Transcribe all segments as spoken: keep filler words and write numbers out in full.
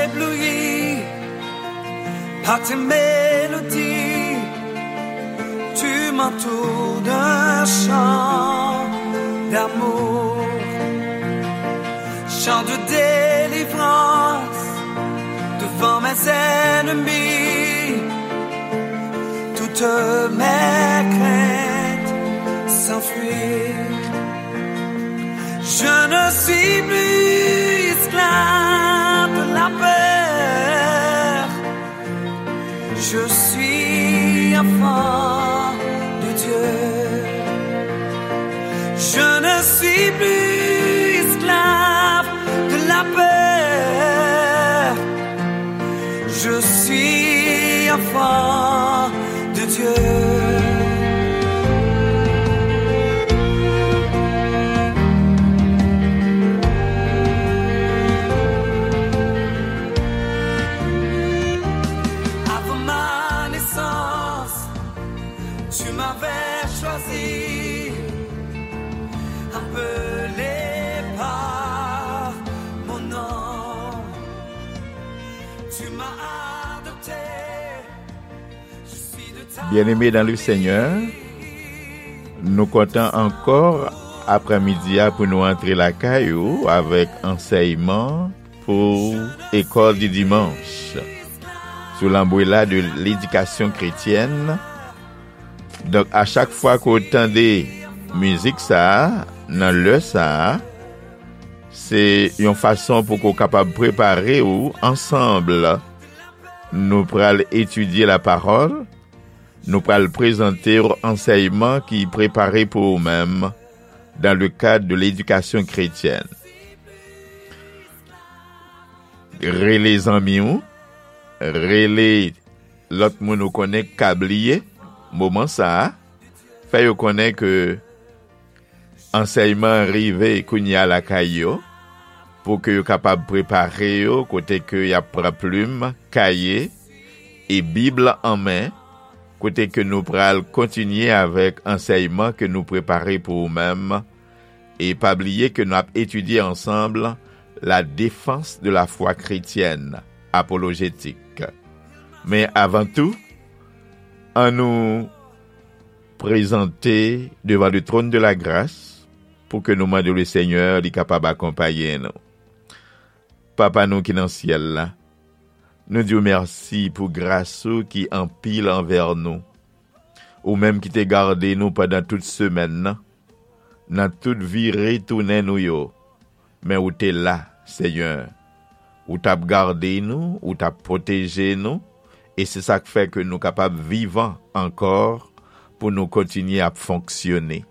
Ébloui par tes mélodies, tu m'entoures d'un chant d'amour, chant de délivrance devant mes ennemis. Toutes mes craintes s'enfuient. Je ne suis plus esclave de la peur. Je suis enfant de Dieu. Je ne suis plus esclave de la peur. Je suis enfant de Dieu. Avant ma naissance, tu m'avais choisi, appelé par mon nom. Tu m'as adopté. Byeneme dan le Senyè, nou kontan ankò aprèmidi a pou nou antre lakay ou avèk ansèyman pou École du Dimanche sou lanbrela de ledikasyon kretyèn. Donk, a chak fwa ke w tande mizik sa a, nan lè sa a, se yon fason pou ke w kapab prepare w ansanm. Nou pral etidye lapawòl, nou pral prezante w ansèyman ki prepare pou ou menm dans le cadre de l'éducation chrétienne. Rele zanmi w, rele lòt moun ou konnen k ka bliye moman sa a, fè yo konnen ke ansèyman rive kounye a lakay yo, pou ke yo kapab prepare yo, kote ke y ap pran plim, kaye, e Bib la an men, kote ke nou pral kontinye avèk ansèyman ke nou prepare pou ou menm. E pa bliye ke n ap etidye ansanm La défense de la foi chrétienne, apolojétik. Men avan tou, annou prezante devan le trône de la grâce pou ke nou mande le Senyè li kapab akonpaye nou. Papa nou ki nan syèl la, nou di w mèsi pou gras ou ki anpil anvè nou. Ou menm ki te gade nou pandan tout semèn nan, nan tout vire tounen nou yo, men ou te la, Senyè. Ou t ap gade nou, ou t ap pwoteje nou, e se sa k fè ke nou kapab vivan ankò pou nou kontinye ap fonksyone.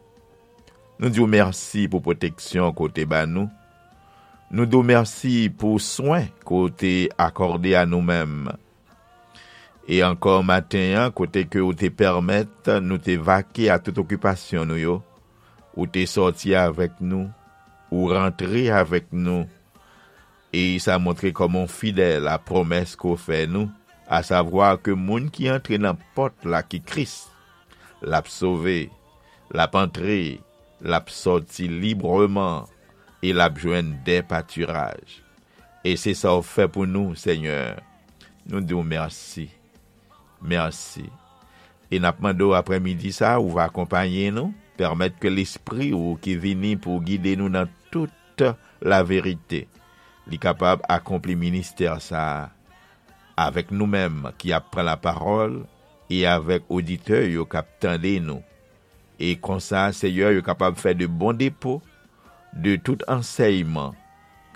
Nou di w mèsi pou pwoteksyon ke w te ba nou. Nou di w mèsi pou swen ke w te akòde a nou menm. E ankò maten an, kote ke w te pèmèt nou te vake a tout okipasyon nou yo, ou te sòti avèk nou, ou rantre avèk nou, e sa montre kòman w fidèl a pwomès ke w fè nou, asavwa ke moun ki antre nan pòt la ki Kris, l ap sove, l ap antre, l ap sòti libreman, e l ap jwenn dè patiraj. E se sa w fè pou nou, Senyè. Nou di w mèsi. Mèsi. E n ap mande w aprèmidi sa a, ou va akonpaye nou, pèmèt ke Lespri ou ki vini pou gide nou nan tout laverite, li kapab akonpli ministè sa a avèk nou menm ki ap pran lapawòl e avèk oditè yo k ap tande nou. E konsa, Senyè, yo kapab fè de bon depo de tout ansèyman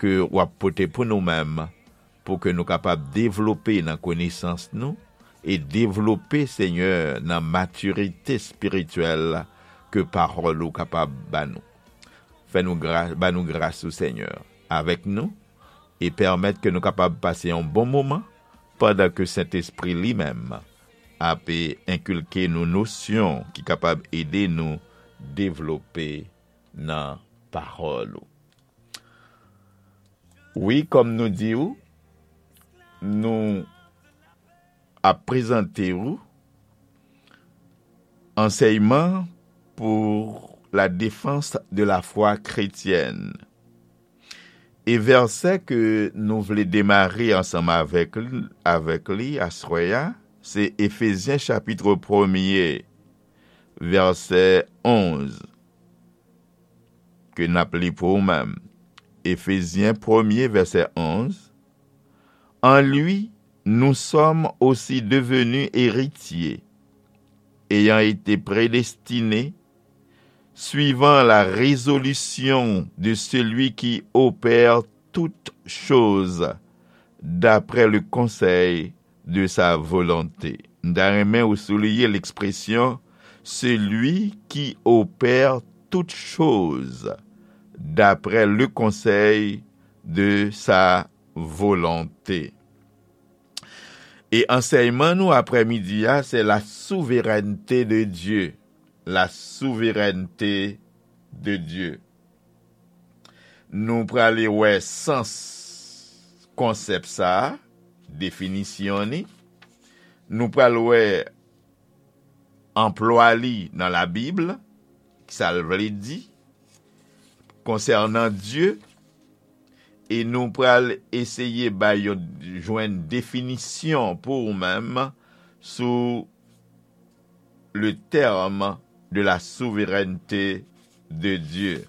ke w ap pote pou nou menm, pou ke nou kapab devlope nan konesans nou e devlope, Senyè, nan matirite espirityèl ke pawòl ou kapab ba nou. Fè nou gra-, ba nou gras ou, Senyè, avèk nou, e pèmèt ke nou kapab pase yon bon moman pandan ke Sentespri li menm ap enkilke nou nosyon ki kapab ede nou devlope nan pawòl ou. Wi, kòm nou di w, nou ap prezante w ansèyman pour la défense de la foi chrétienne. E vèsè ke nou vle demare ansanm avèk li, avèk li aswè a, se Efezyen chapit premye, vèsè onz, ke n ap li pou ou menm. Efezyen premye, vèsè onz. En lui, nous sommes aussi devenus héritiers, ayant été prédestinés suivant la résolution de celui qui opère toutes choses d'après le conseil de sa volonté. M ta renmen ou souliye lekspresyon celui qui opère toutes choses d'après le conseil de sa volonté. E ansèyman nou aprèmidi a, se la souverènte de Dye. La souverènte de Dye. Nou prale wè sans konsèp sa a, definisyon ni. Nou pral wè anplwa li nan Labib, sa l vle di konsènan Dye, e nou pral eseye bay yon, jwenn definisyon pou ou menm sou le terme de la souveraineté de Dieu.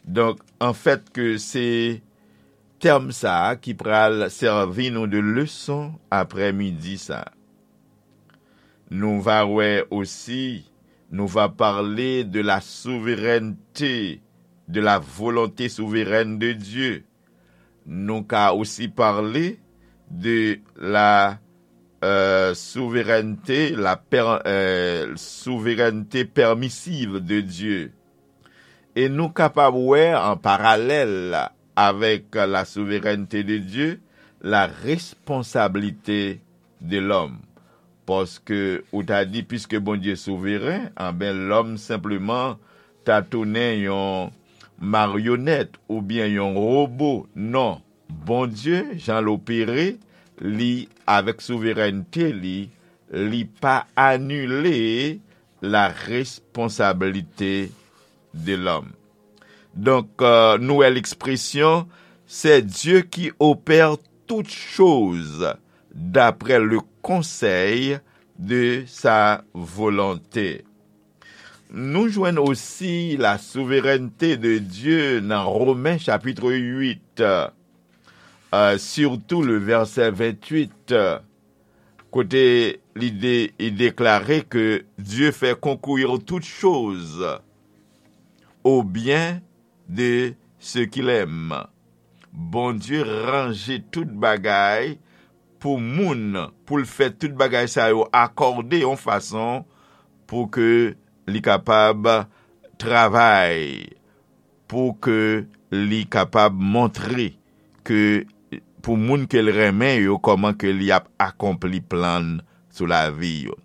Donk, anfèt, ke se tèm sa a ki pral sèvi nou de leson aprèmidi sa a. Nou va wè osi, nou va pale de la souverènte, de la volonté souveraine de Dieu. Nou ka osi pale de la euh, souveraineté, la per, euh, souveraineté permissive de Dieu. E nou kapab wè an paralèl avèk la souverènte de Dye, la responsabilité de l'homme. Paske ou ta di, piske Bondye souveren, anben lòm senpleman ta tounen yon maryonèt oubyen yon wobo. Non, Bondye, jan l opere, li avèk souverènte li, li pa anile la responsabilité de l'homme. Donk, euh, nou wè lekspresyon, c'est Dieu qui opère toutes choses d'après le conseil de sa volonté. Nou jwenn osi la souverènte de Dye nan Romen chapit uit, euh, sitou le vèsè venntuit, euh, kote li de, li deklare ke Dieu fait concourir toutes choses au bien de ceux qu'il aime. Bondye ranje tout bagay pou moun, pou l fè tout bagay sa yo akòde yon fason pou ke li kapab travay, pou ke li kapab montre ke pou moun ke l renmen yo, kòman ke li ap akonpli plan l sou lavi yo.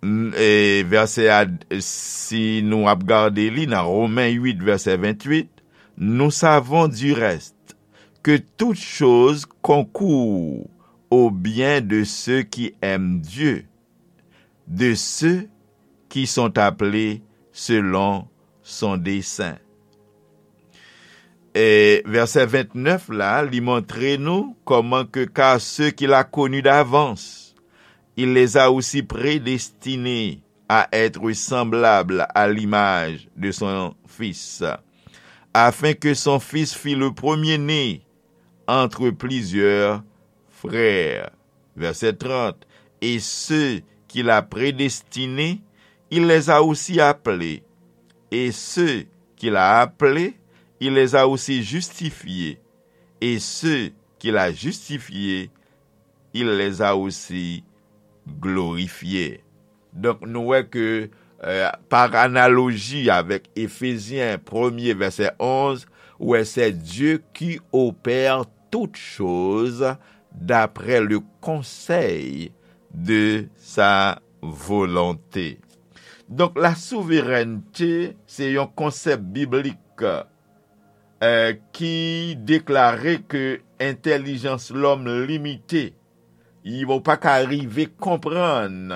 N-, e, vèsè a, si nou ap gade li nan Romen uit, vèsè venntuit, nous savons du reste que toutes choses concourent au bien de ceux qui aiment Dieu, de ceux qui sont appelés selon son dessein. E vèsè vennèf la, li montre nou kòman ke, car ceux qu'il a connus d'avance, il les a aussi prédestinés à être semblables à l'image de son Fils, afin que son Fils fît le premier-né entre plusieurs frères. Verset trente. Et ceux qu'il a prédestinés, il les a aussi appelés. Et ceux qu'il a appelés, il les a aussi justifiés. Et ceux qu'il a justifiés, il les a aussi glorifiés. Donk, nou wè ke, euh, par analoji avèk Efezyen premye, vèsè onz, ou wè, c'est Dieu qui opère toutes choses d'après le conseil de sa volonté. Donk, la souverènte, se yon konsèp biblik, euh, ki deklare ke entèlijans lòm limite. Yo pa ka rive konprann,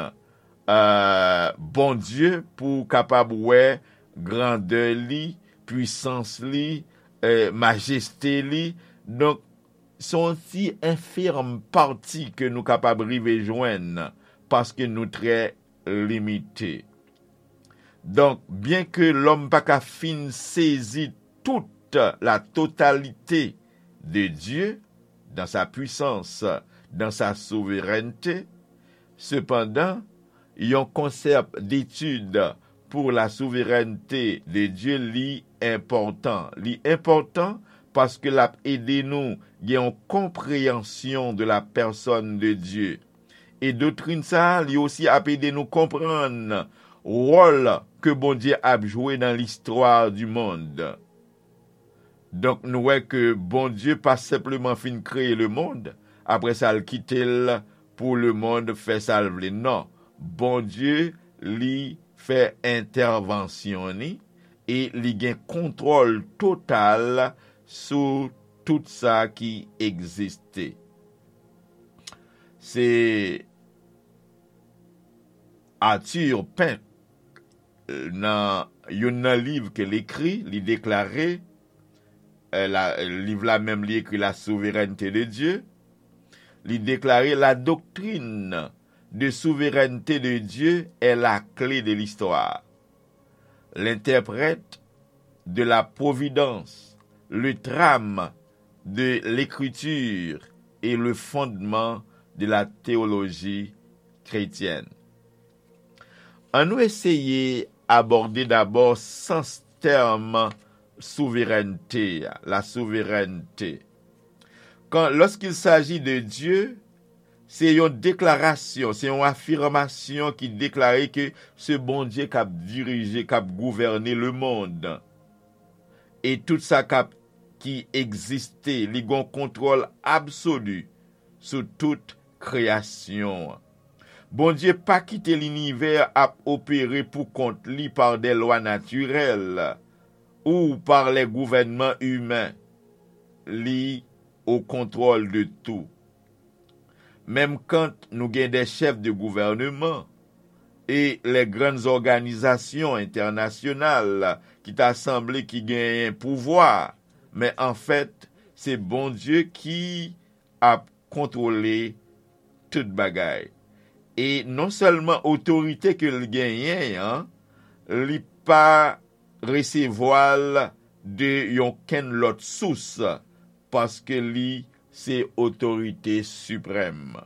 euh, Bondye pou w kapab wè grandè li, pwisans li, eh, majeste li. Donk, se yon ti enfim pati ke nou kapab rive jwenn, paske nou trè limite. Donk, byenke lòm pa ka fin sezi tout la totalité de Dieu dans sa puissance, dans sa souveraineté, sepandan, yon konsèp d'étude pour la souveraineté de Dieu li enpòtan. Li enpòtan paske l ap ede nou gen yon konpreyansyon de la personne de Dieu. E doktrin sa a, li osi ap ede nou konprann wòl ke Bondye ap jwe nan listwa du monde. Donk, nou wè ke Bondye pa senpleman fin kreye lemonn, apre sa, l kite l pou lemonn fè sa l vle. Non, Bondye, li fè entèvansyon ni, e li gen kontwòl total sou tout sa ki egziste. Se Arthur Pink, nan youn nan liv ke l ekri, li deklare, eh, la, liv la menm li ekri La souveraineté de Dieu, li deklare: La doctrine de souveraineté de Dieu est la clé de l'histoire. L'interprète de la providence, le trame de l'écriture et le fondement de la théologie chrétienne. Ann nou eseye abòde dabò sans tèm souverènte a, la souverènte. Quand, lorsqu'il s'agit de Dieu, se yon deklarasyon, se yon afimasyon ki deklare ke se Bondye k ap dirije, k ap gouvène lemonn. E tout sa k ap, ki egziste, li gen yon kontwòl absoli sou tout kreyasyon an. Bondye pa kite linivè ap opere pou kont li par des lois naturelles ou par les gouvernements humains. Li au contrôle de tout. Menm kan nou gen des chefs de gouvernement e les grandes organisations internationales ki ta sanble ki genyen pouvwa, men anfèt, se Bondye ki ap kontwole tout bagay. E non sèlman otorite ke l genyen an, li pa resevwa l de yon kenn lòt sous, paske li se otorite siprèm.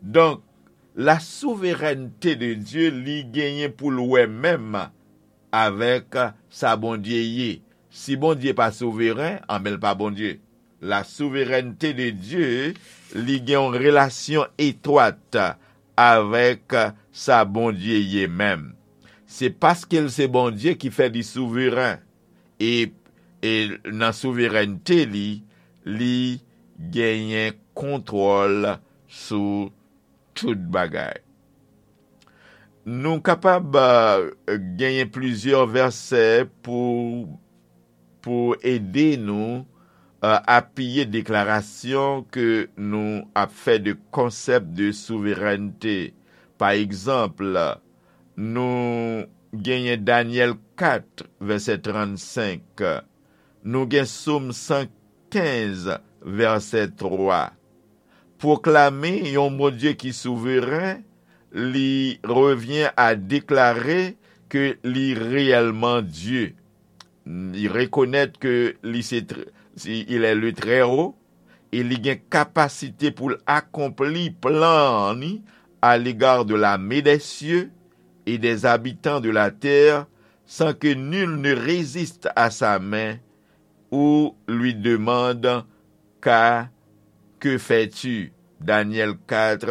Donk, la souverènte de Dye, li genyen pou l wè menm avèk sa Bondye ye. Si Bondye pa souveren, anben l pa Bondye. La souverènte de Dye, li gen yon relasyon etwat avèk sa Bondye ye menm. Se paske l se Bondye ki fè li souveren. E, e nan souverènte li, li genyen kontwòl sou tout bagay. Nou kapab, eh, genyen plizyè vèsè pou, pou ede nou, eh, apiye deklarasyon ke nou ap fè de konsèp de souverènte. Pa egzanp, nou genyen Danyèl kat, vèsè trannsenk. Nou gen Sòm san kenz, vèsè twa. Pwoklame yon Bondye ki souveren, li revyen a deklare ke li reyèlman Dye. Li rekonèt ke li se tr-, si, il est le Très-Haut, e li gen kapasite pou l akonpli plan an ni à l'égard de l'armée des cieux et des habitants de la terre, sans que nul ne résiste à sa main ou lui demande: Qu'as, que fais-tu? Danyèl kat,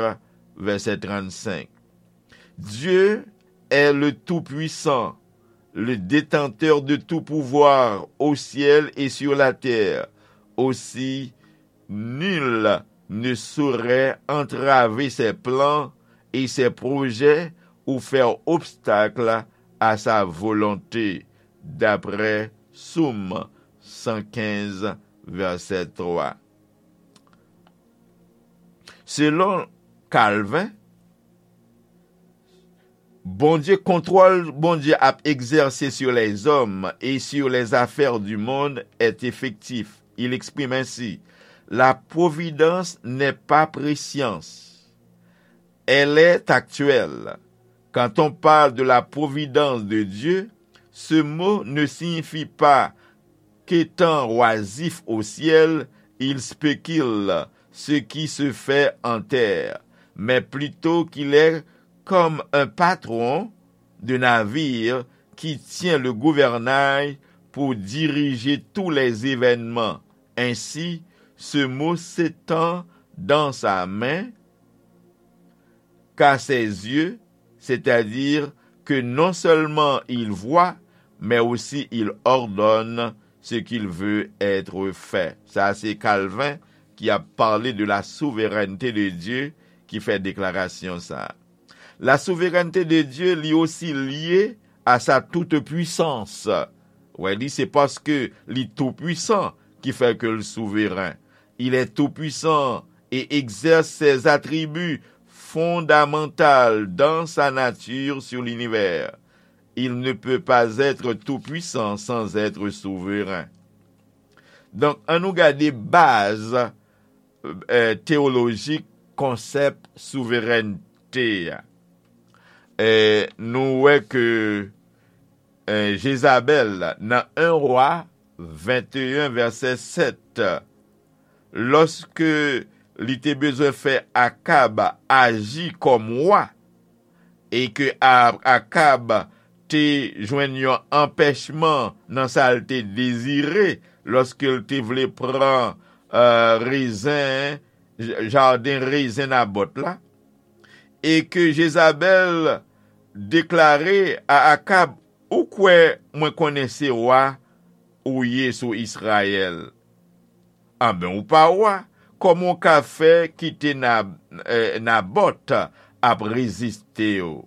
vèsè trannsenk. Dieu est le Tout-Puissant, le détenteur de tout pouvoir au ciel et sur la terre. Aussi, nul ne saurait entraver ses plans et ses projets ou faire obstacle à sa volonté, d'après Sòm san kenz, vèsè twa. Selon Calvin, Bondye, contrôle Bondye ap exercer sur les hommes et sur les affaires du monde est effectif. Il exprime ainsi: La providence n'est pas prescience. Elle est actuelle. Quand on parle de la providence de Dieu, ce mot ne signifie pas qu'étant oisif au ciel, il spécule ce qui se fait en terre, mais plutôt qu'il est comme un patron de navire qui tient le gouvernail pour diriger tous les événements. Ainsi, ce mot s'étend dans sa main qu'à ses yeux, c'est-à-dire que non seulement il voit, mais aussi il ordonne ce qu'il veut être fait. Sa se Calvin ki ap pale de la souveraineté de Dieu ki fè deklarasyon sa. La souveraineté de Dieu li osi lye à sa toute puissance. Wè, li se paske li tou pwisan ki fè ke l souveren. Il est tout puissant et exerce ses attributs fondamentaux dans sa nature sur l'univers. Il ne peut pas être tout puissant sans être souverain. Donk, ann nou gade baz eh, teyolojik konsèp souverènte a. Eh, nou wè ke eh, Jezabèl, nan en Wa venteyen vèsè sèt, lòske li te bezwen fè Akab aji kòm wa, e ke A- Akab te jwenn yon anpèchman nan sa l te dezire lòske l te vle pran eh, rezen, j- jaden rezen Nabòt la, e ke Jezabèl deklare a Akab: Ou kwè mwen konnen se wa ou ye sou Izrayèl? Anben, ou pa wa. Kòman w ka fè kite Na, eh, Nabòt ap reziste w?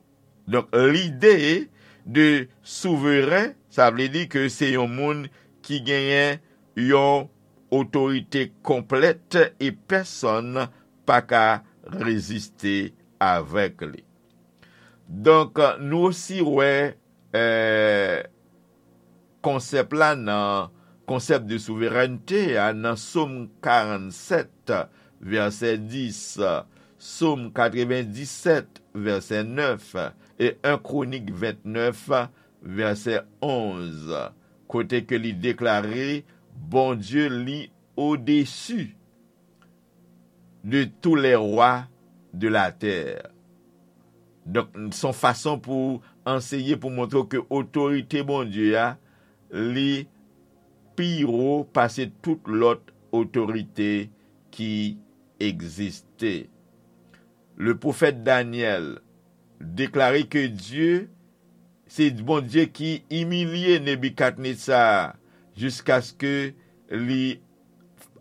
Donk, lide de souveren, sa vle di ke se yon moun ki genyen yon otorite konplèt e pèsonn pa ka reziste avèk li. Donk, nou osi wè eh, konsèp la nan konsèp de souverènte a nan Sòm karannsèt, vèsè dis, Sòm katrevendisèt, vèsè nèf, e en Kwonik ventnèf, vèsè onz, kote ke li deklare Bondye li odesi de tous les rois de la terre. Donk, se yon fason pou anseye, pou montre w ke otorite Bondye a, li pi wo pase tout lòt otorite ki egziste. Le pwofèt Danyèl deklare ke Dye se Bondye ki imilye Nebikadnetsa jiskaske li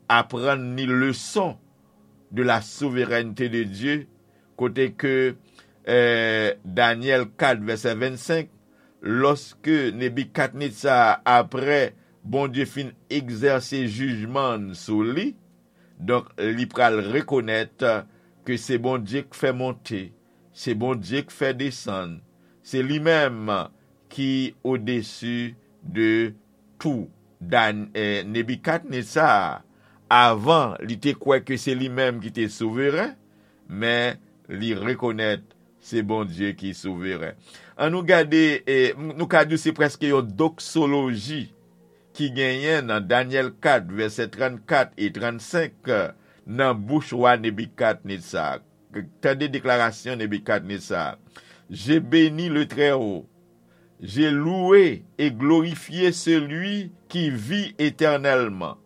aprann ni leson de la souveraineté de Dieu, kote ke eh, Danyèl kat vèsè vennsenk, lòske Nebikadnetsa, apre Bondye fin egzèse jijman sou li, donk li pral rekonèt ke se Bondye k fè monte, se Bondye k fè desann, se li menm ki odesi de tou. Dan, eh, Nebikadnetsa, avan, li te kwè ke se li menm ki te souveren, men li rekonèt se Bondye ki souveren. An nou gade, eh, nou ka di se prèske yon doksoloji ki genyen nan Danyèl kat, vèsè trannkat e trannsenk, nan bouch wa Nebikadnetsa. Tande deklarasyon Nebikadnetsa: J'ai béni le Très-Haut, j'ai loué et glorifié celui qui vit éternellement.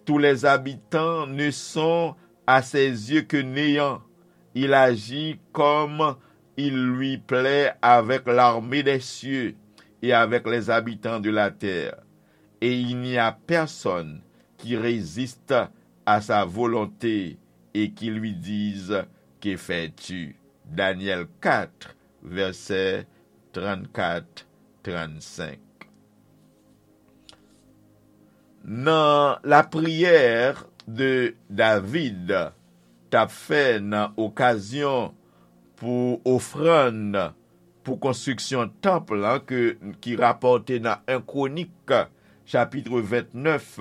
Tous les habitants ne sont à ses yeux que néant. Il agit comme il lui plaît avec l'armée des cieux et avec les habitants de la terre. Et il n'y a personne qui résiste à sa volonté et qui lui dise: Que fais-tu? Danyèl kat, vèsè trannkat, trannsenk. Nan lapriyè de David t ap fè nan okazyon pou ofrann pou konstriksyon tanp lan ke, ki rapòte nan en Kwonik, chapit vennèf,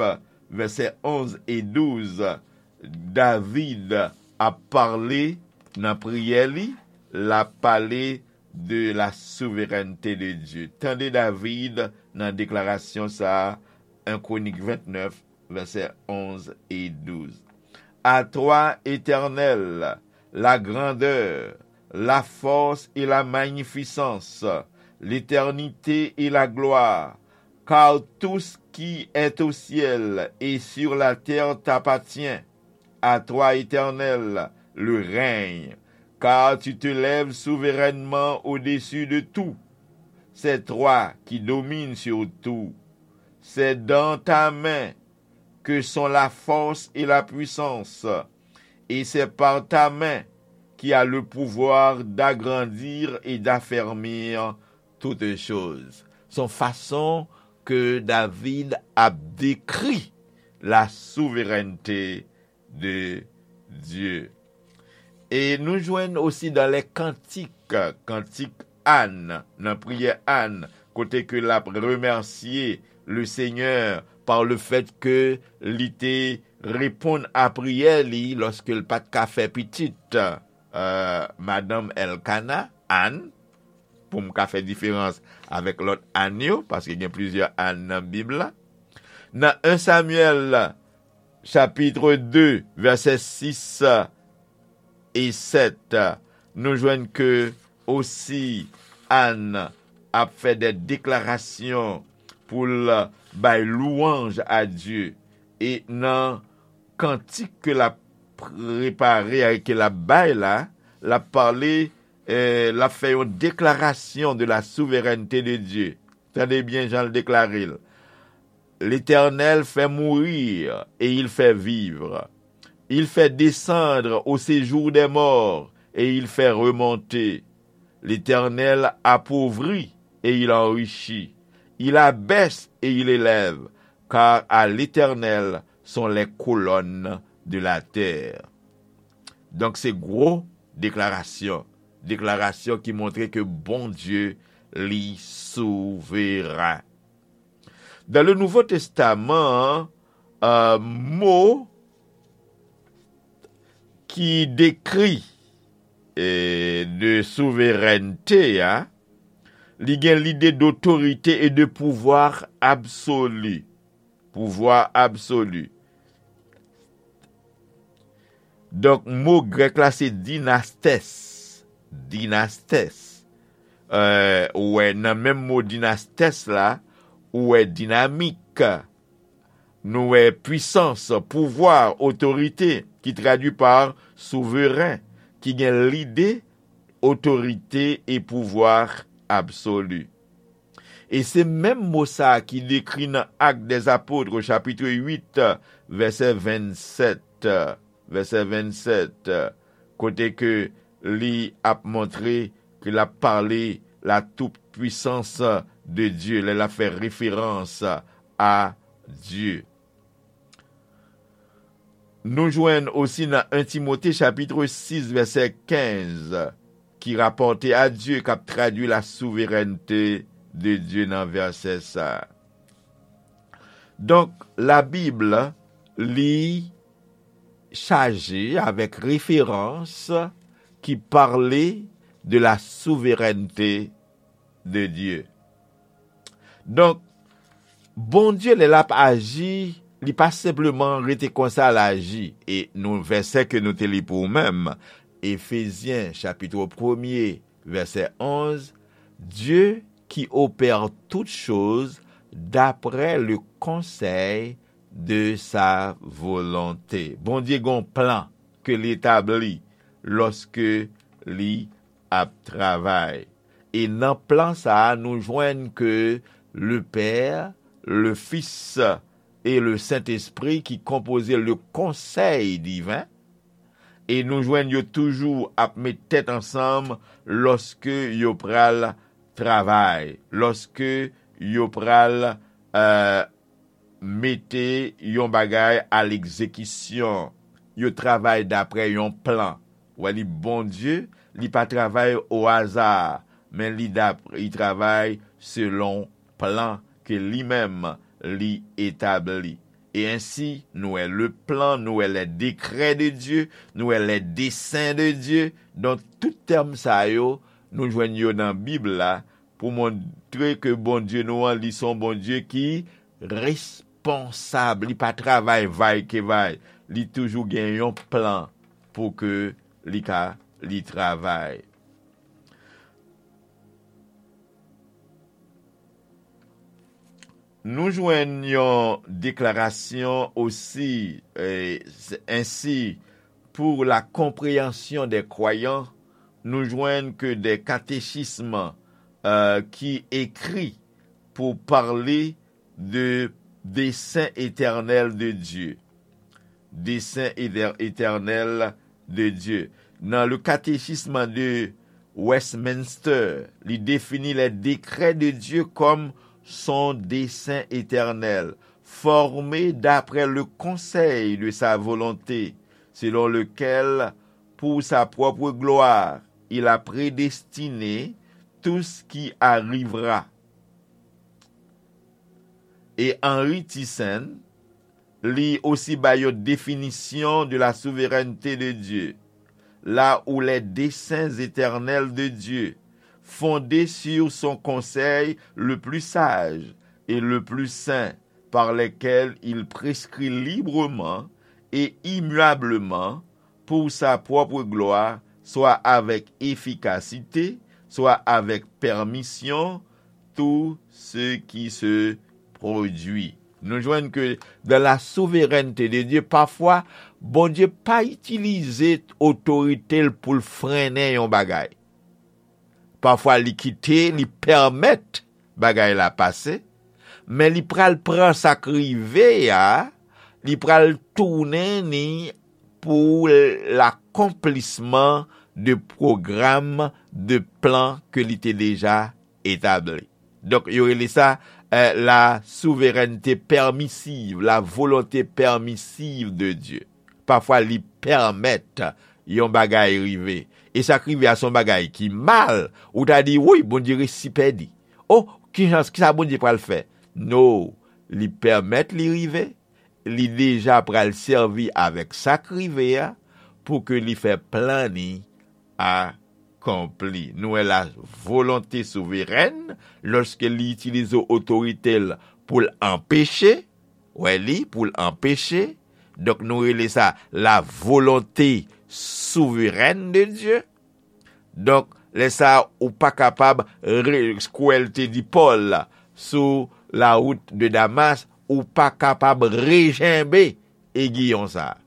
vèsè onz e douz, David ap pale nan priyè li, l ap pale de la souveraineté de Dieu. Tande David nan deklarasyon sa a, en Kwonik vennèf, vèsè onz e douz. À toi, Éternel, la grandeur, la force et la magnificence, l'éternité et la gloire, car tout ce qui est au ciel et sur la terre t'appartient. À toi, Éternel, le règne, car tu te lèves souverainement au-dessus de tout. C'est toi qui domines sur tout. C'est dans ta main que sont la force et la puissance, et c'est par ta main qui a le pouvoir d'agrandir et d'affermir toutes choses. Se yon fason ke David ap dekri la souveraineté de Dieu. E nou jwenn osi dans les Cantiques, kantik Ann, nan priyè Ann, kote ke l ap remèsye le Seigneur par le fait ke li te reponn a priyè li lòske l pa t ka fè pitit. Euh, madanm Elkana, Ann, pou m ka fè diferans avèk lòt Ann yo, paske gen plizyè Ann nan Bib la. Nan en Samyèl, chapit de, vèsè sis e sèt, nou jwenn ke osi Ann ap fè de deklarasyon pou l bay lwanj a Dye. E nan kantik ke l ap prepare, ke l ap bay la, l ap pale, eh, l ap fè yon deklarasyon de la souveraineté de Dieu. Tande byen jan l deklare l. L'Éternel fait mourir et il fait vivre. Il fait descendre au séjour des morts et il fait remonter. L'Éternel appauvrit et il enrichit. Il abaisse et il élève, car à l'Éternel sont les colonnes de la terre. Donk, se gwo deklarasyon. Deklarasyon ki montre ke Bondye, li souveren. Dans le Nouveau Testament, euh, mo ki dekri, eh, de souverènte a, li gen lide d'autorité et de pouvoir absolu. Pouvwa absoli. Donk, mo grèk la se dinastès. Dinastès. Euh, ou wè, nan menm mo dinastès la, ou wè dinamik, nou wè pwisans, pouvwa, otorite, ki tradui pa souveren, ki gen lide otorite e pouvwa absoli. E se menm mo sa a ki dekri nan Actes des Apôtres, chapit uit, vèsè vennsèt, vèsè vennsèt, kote ke li ap montre ke l ap pale la toute puissance de Dieu, lè l ap fè referans a Dye. Nou jwenn osi nan en Timote chapit sis vèsè kenz, ki rapòte a Dye, k ap tradui la souverènte de Dye nan vèsè sa a. Donk, Labib, li chaje avèk referans ki pale de la souverènte de Dye. Donk, Bondye, lè l ap aji, li pa senpleman rete konsa l aji. E nou, vèsè ke nou te li pou ou menm, Efezyen, chapit premye, vèsè onz, Dieu qui opère toutes choses d'après le conseil de sa volonté. Bondye gon plan ke li etabli lòske li ap travay. E nan plan sa a, nou jwenn ke le Père, le Fils et le Saint-Esprit ki konpoze le konsèy diven, e nou jwenn yo toujou ap met tèt ansanm lòske yo pral travay, lòske yo pral, euh, mete yon bagay a legzekisyon. Yo travay daprè yon plan. Ou wè, li Bondye, li pa travay o aza. men li dap-, li travay selon plan ke li menm li etabli. E ensi, nou wè le plan, nou wè les décrets de Dieu, nou wè les desseins de Dieu. Donk, tout tèm sa yo, nou jwenn yo nan Bib la, pou montre ke Bondye nou an, li se yon Bondye ki responsab, li pa travay vay ke vay, li toujou gen yon plan pou ke li ka, li travay. Nou jwenn yon deklarasyon osi, eh, s-, ensi, pour la compréhension des croyants, nou jwenn ke de katechism, eh, ki ekri pou pale de dessein éternel de Dieu. Dessein éter-, éternel de Dieu. Dans le catéchisme de Westminster, li définit les décrets de Dieu comme son dessein éternel, formé d'après le conseil de sa volonté, selon lequel, pour sa propre gloire, il a prédestiné tout ce qui arrivera. E Henry Thiessen, li osi bay yon définition de la souveraineté de Dieu, là où les desseins éternels de Dieu, fondés sur son conseil le plus sage et le plus saint, par lesquels il prescrit librement et immuablement pour sa propre gloire, soit avec efficacité, soit avec permission, tout ce qui se produit. Nou jwenn ke dans la souveraineté de Dieu, pafwa, Bondye pa itilize otorite l pou l frennen yon bagay. Pafwa, li kite, li pèmèt bagay la pase, men li pral pran sa k rive a, li pral tounen ni pou lakonplisman de pwogram, de plan ke li te deja etabli. Donk, yo rele sa, eh, la souveraineté permissive, la volonté permissive de Dieu. Pafwa, li pèmèt yon bagay rive. E sa k rive a se yon bagay ki mal, ou ta di, "Woy, Bondye resi pèdi. O, ki jan, kisa Bondye pral fè?" No, li pèmèt li rive, li deja pral sèvi avèk sa k rive a pou ke li fè plan ni akonpli. Nou wè la volonte souverèn, lòske li itilize otorite l pou l anpeche, wè li, pou l anpeche. Donk, nou rele sa la volonté souveraine de Dieu. Donk, lè sa a, ou pa kapab re-, kwè l te di Pòl sou la wout de Damas, ou pa kapab rejenbe egiyon sa a.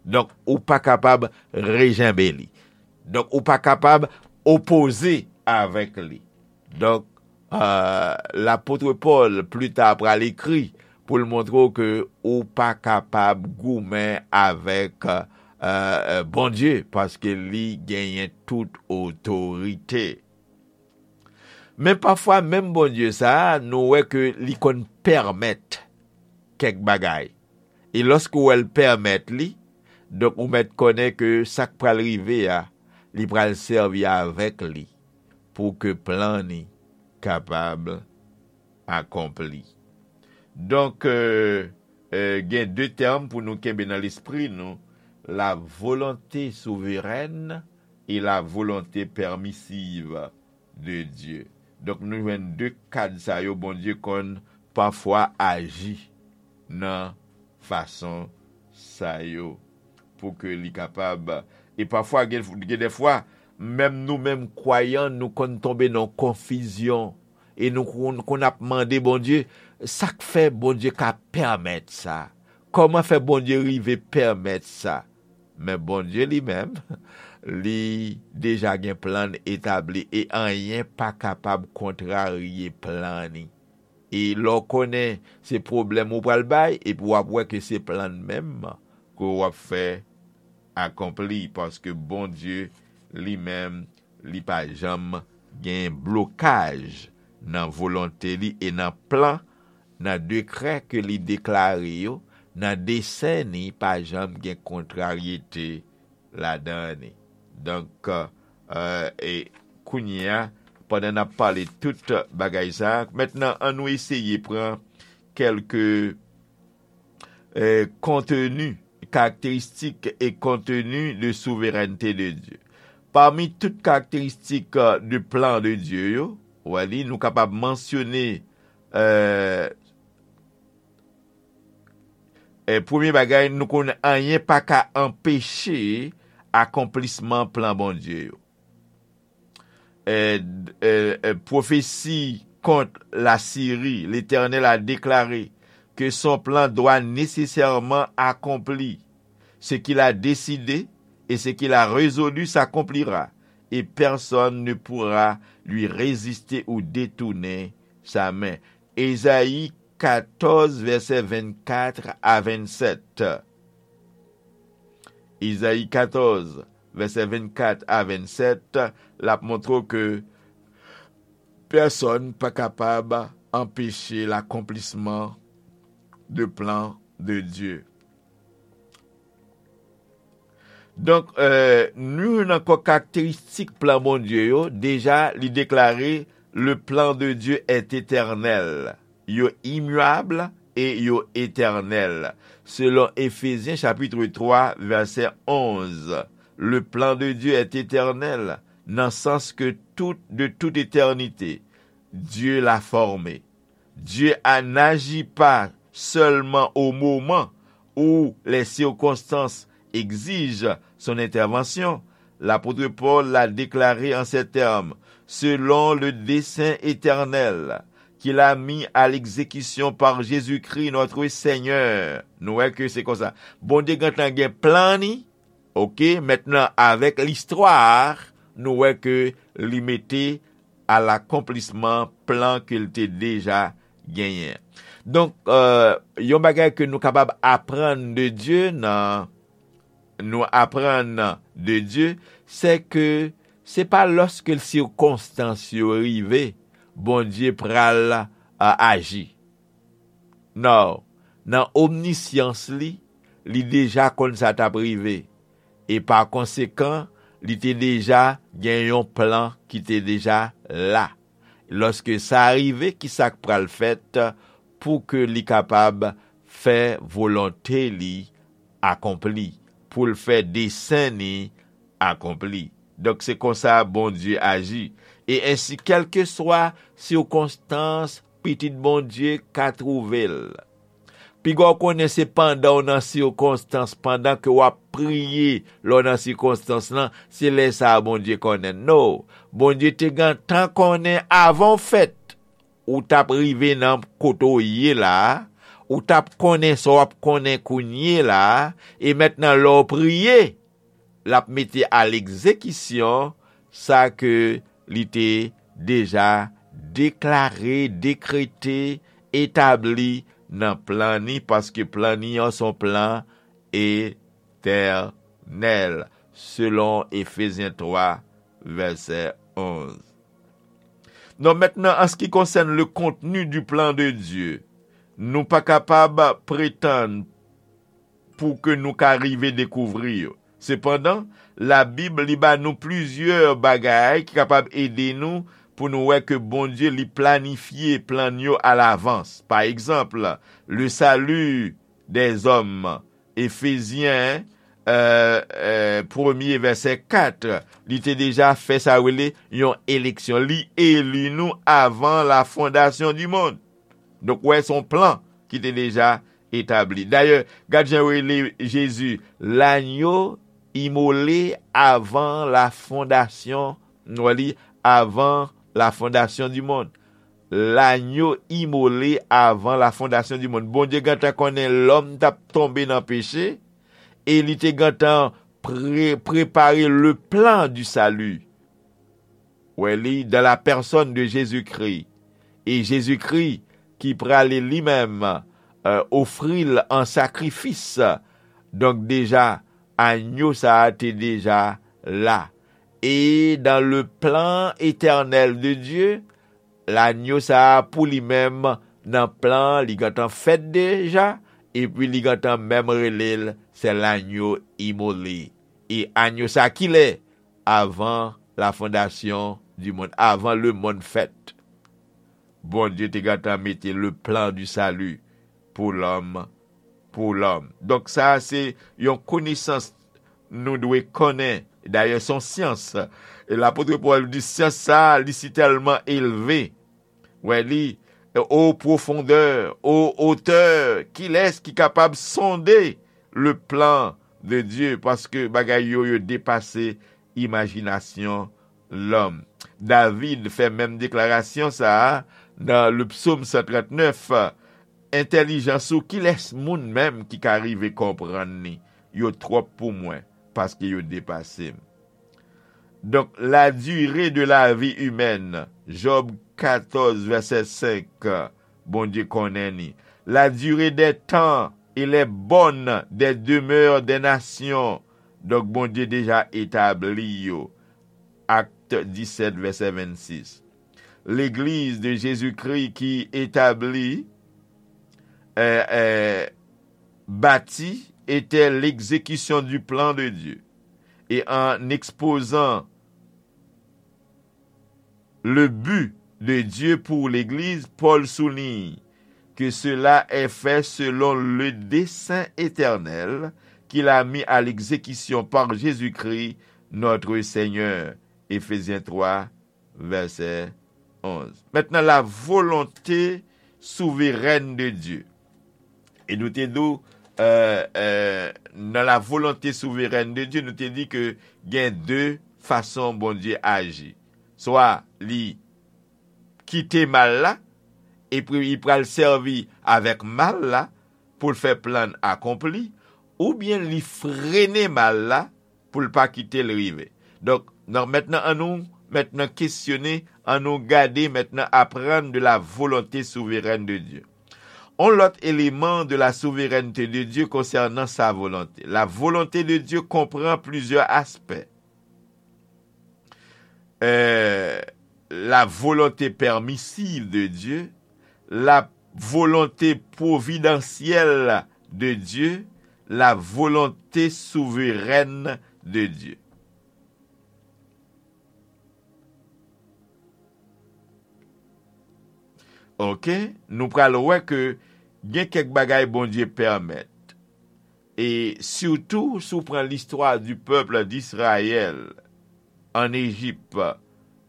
Donk, ou pa kapab rejenbe li. Donk, ou pa kapab opoze avèk li. Donk, euh, lapot Pòl, pli ta, pral ekri pou l montre w ke ou pa kapab goumen avèk, euh, Bondye, paske li genyen tout otorite. Men pafwa, menm Bondye sa a, nou wè ke li konn pèmèt kèk bagay. E lòske w wè l pèmèt li, donk, ou mèt konnen ke sa k pral rive a, li pral sèvi avèk li pou ke plan ni kapab akonpli. Donk, euh, euh, gen de tèm pou nou kenbe nan lespri nou, la volonté souveraine et la volonté permissive de Dieu. Donk, nou jwenn de kad sa yo, Bondye konn pafwa aji nan fason sa yo pou ke li kapab. E pafwa, gen, gen de fwa, menm nou menm kwayan, nou konn tonbe nan konfizyon. E nou konn, konn ap mande Bondye, sa k fè Bondye ka pèmèt sa? Kòman fè Bondye rive pèmèt sa? Men Bondye li menm, li deja gen plan n etabli e anyen pa kapab kontrarye plan ni. E lè w konnen se pwoblèm ou pral bay, epi w ap wè ke se plan n menm ke w ap fè akonpli, paske Bondye li menm, li pa janm gen blokaj nan volonte li e nan plan, nan dekrè ke li deklare yo, nan desen ni, pa janm gen kontraryete ladan ni. Donk, euh, e kounye a, pandan n ap pale tout bagay sa a. Mentnan, ann nou eseye pran kèlke, eh, konteni, karakteristik e konteni de souverènte de Dye. Pami tout karakteristik, eh, de plan de Dye yo, w wè li, nou kapab mansyone, eh, eh, premye bagay, nou konnen anyen pa ka anpeche akonplisman plan Bondye yo. Eh, eh, eh, pwofesi kont Lasiri, Letènèl a deklare ke son plan dwa nesesèman akonpli. Ce qu'il a décidé et ce qu'il a résolu s'accomplira, et personne ne pourra lui résister ou détourner sa main. Ezayi katòz, vèsè vennkat a vennsèt. Ezayi katòz, vèsè vennkat a vennsèt, l ap montre w ke pèsonn pa kapab anpeche lakonplisman de plan de Dye. Donk, eh, nou jwenn ankò karakteristik plan Bondye yo. Deja, li deklare, le plan de Dieu est éternel. Yo imyab e yo etènèl. Selon Efezyen chapit twa, vèsè onz, le plan de Dieu est éternel, nan sans ke tout, de toute éternité, Dieu l'a formé. Dieu a, n'agit pas seulement au moment où les circonstances exigent son intervention. L'apôtre Paul l'a déclaré en ces termes, selon le dessein éternel qu'il a mis à l'exécution par Jésus-Christ notre Seigneur. Nou wè ke se konsa. Bondye gentan gen plan ni, oke, mentnan avèk listwa, nou wè ke li mete a lakonplisman plan ke l te deja genyen. Donk, eh, yon bagay ke nou kapab aprann de Dye nan, nou aprann de Dye, se ke se pa lòske sikonstans yo rive, Bondye pral, eh, aji. Non, nan omnisyans li, li deja konn sa t ap rive. E pa konsekan, li te deja gen yon plan ki te deja la. Lòske sa rive, ki sa k pral fèt pou ke li kapab fè volonte li akonpli, pou l fè desen ni akonpli? Donk, se konsa Bondye aji. E ensi, kèlkeswa sikonstans pitit Bondye ka twouve l, piga w konnen se pandan w nan sikonstans, pandan ke w ap priye, lè w nan sikonstans lan, se lè sa a Bondye konnen. No, Bondye te gentan konnen avan w fèt, ou t ap rive nan kote w ye la a, ou t ap konnen sa w ap konnen kounye la a, e mentnan lè w priye, l ap mete a legzekisyon sa ke li te deja deklare, dekrete, etabli nan plan ni, paske plan ni an se yon plan etènèl, selon Efezyen twa, vèsè onz. Non, mentnan, an se ki konsèn le contenu du plan de Dieu, nou pa kapab pretann pou ke nou ka rive dekouvri yo. Sepandan, Labib li ba nou plizyè bagay ki kapab ede nou pou nou wè ke Bondye li planifye plan yo alavans. Pa egzanp, le salut des hommes, Efezyen, eh, eh, premye vèsè kat, li te deja fè sa rele yon eleksyon. Li eli nou avan la fondasyon di mond. Donk, wè, se yon plan ki te deja etabli. Dayè, gad jan yo rele Jezi, l'agneau immolé avant la fondation, nou wè li, avant la fondation du monde. L'agneau immolé avant la fondation du monde. Bondye gentan konnen lòm t ap tonbe nan peche, e li te gentan pre-, prepare le plan du salut. Wè li, dans la personne de Jésus-Christ. E Jezikri ki prale li menm, eh, ofri l an sakrifis. Donk deja, agno sa a te deja la. E dans le plan éternel de Dieu, lagno sa a pou li menm nan plan li gentan fèt deja, epi li gentan menm rele l, c'est l'agneau immolé. E agno sa a kilè? Avant la fondation du monde, avan lemonn fèt. Bondye te gentan mete le plan du salut pour l'homme, pour l'homme. Donk, sa a se yon konesans nou dwe konnen. Dayè, se yon syans. E lapot Pòl di, syans sa a, li si tèlman elve. Wè li, o pwofondè, o otè, kilès ki kapab sonde le plan de Dieu? Paske bagay yo, yo depase imajinasyon lòm. David fè menm deklarasyon sa a nan le psaume cent trente-neuf, entèlijans ou, kilès moun menm ki ka rive konprann li? Yo twòp pou mwen, paske yo depase m. Donk, la durée de la vie humaine, Job katòz, vèsè senk, Bondye konnen li. La durée des temps et les bornes des demeures des nations, donk, Bondye deja etabli yo. Acte dix-sept, vèsè vennsis. Legliz de Jezikri ki etabli, euh, euh, bâti était l'exécution du plan de Dieu. Et en exposant le but de Dieu pour l'Église, Paul souligne que cela est fait selon le dessein éternel qu'il a mis à l'exécution par Jésus-Christ, notre Seigneur. Éphésiens trois, vèsè onz. Mentnan, la volonté souveraine de Dieu. E nou te di w, euh, euh, nan la volonté souveraine de Dieu, nou te di ke gen de fason Bondye aji. Swa li kite mal la, epi li pral sèvi avèk mal la pou l fè plan l akonpli, oubyen li frene mal la pou l pa kite l rive. Donk, nan, mentnan, annou mentnan kesyone, annou gade mentnan, apprendre de la volonté souveraine de Dieu. On lòt eleman de la souveraineté de Dieu concernant sa volonté. La volonté de Dieu comprend plusieurs aspects. Euh, la volonté permissive de Dieu, la volonté providentielle de Dieu, la volonté souveraine de Dieu. Ok, nou pral wè ke gen kèk bagay Bondye pèmèt. E sitou, si w pran l'histoire du peuple d'Israël en Égypte,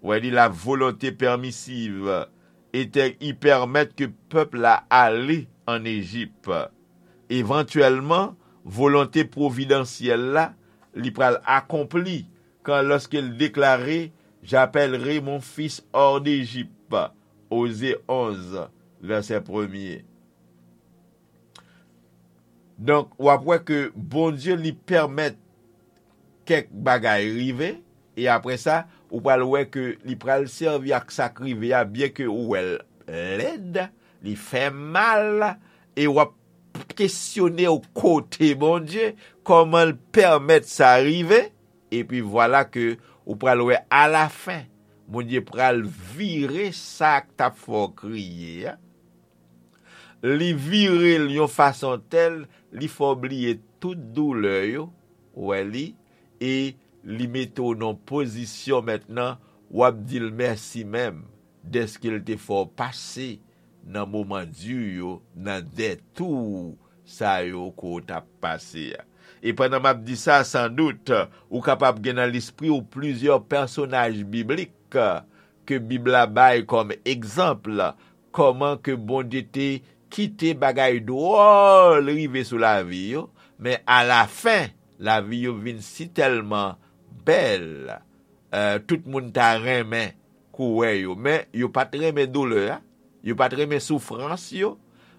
wè li, la volonté permissive était, il permet que peuple la ale en Égypte. Evantyèlman, volonte pwovidansyèl la, li pral akonpli kan, lorsqu'il déclarait, j'appellerai mon fils hors d'Égypte, Oze onz, vèsè premye. Donk, w ap wè ke Bondye li pèmèt kèk bagay rive, e apre sa, ou pral wè ke li pral sèvi ak sa k rive a, byen ke ou wè l lèd, li fè mal, e w ap kesyone w kote Bondye, kòman l pèmèt sa rive, epi vwala ke ou pral wè alafen, Bondye pral vire sa k t ap fè w kriye a. Li vire l yon fason tèl, li fè w bliye tout doulè yo, ou wè li, e li mete w nan pozisyon mentnan, w ap di l mèsi menm, dèske l te fè w pase nan moman di yo, nan dètou sa yo ke w t ap pase a. E pandan m ap di sa, sandout, ou kapab gen nan lespri w plizyè pèsonaj biblik ke Bib la bay kòm egzanp, kòman ke Bondye te kite bagay dwòl rive sou lavi yo, men alafen, lavi yo vin sitèlman bèl, eh, tout moun ta renmen kou wè yo, men yo pa t renmen doulè a, yo pa t renmen soufrans yo,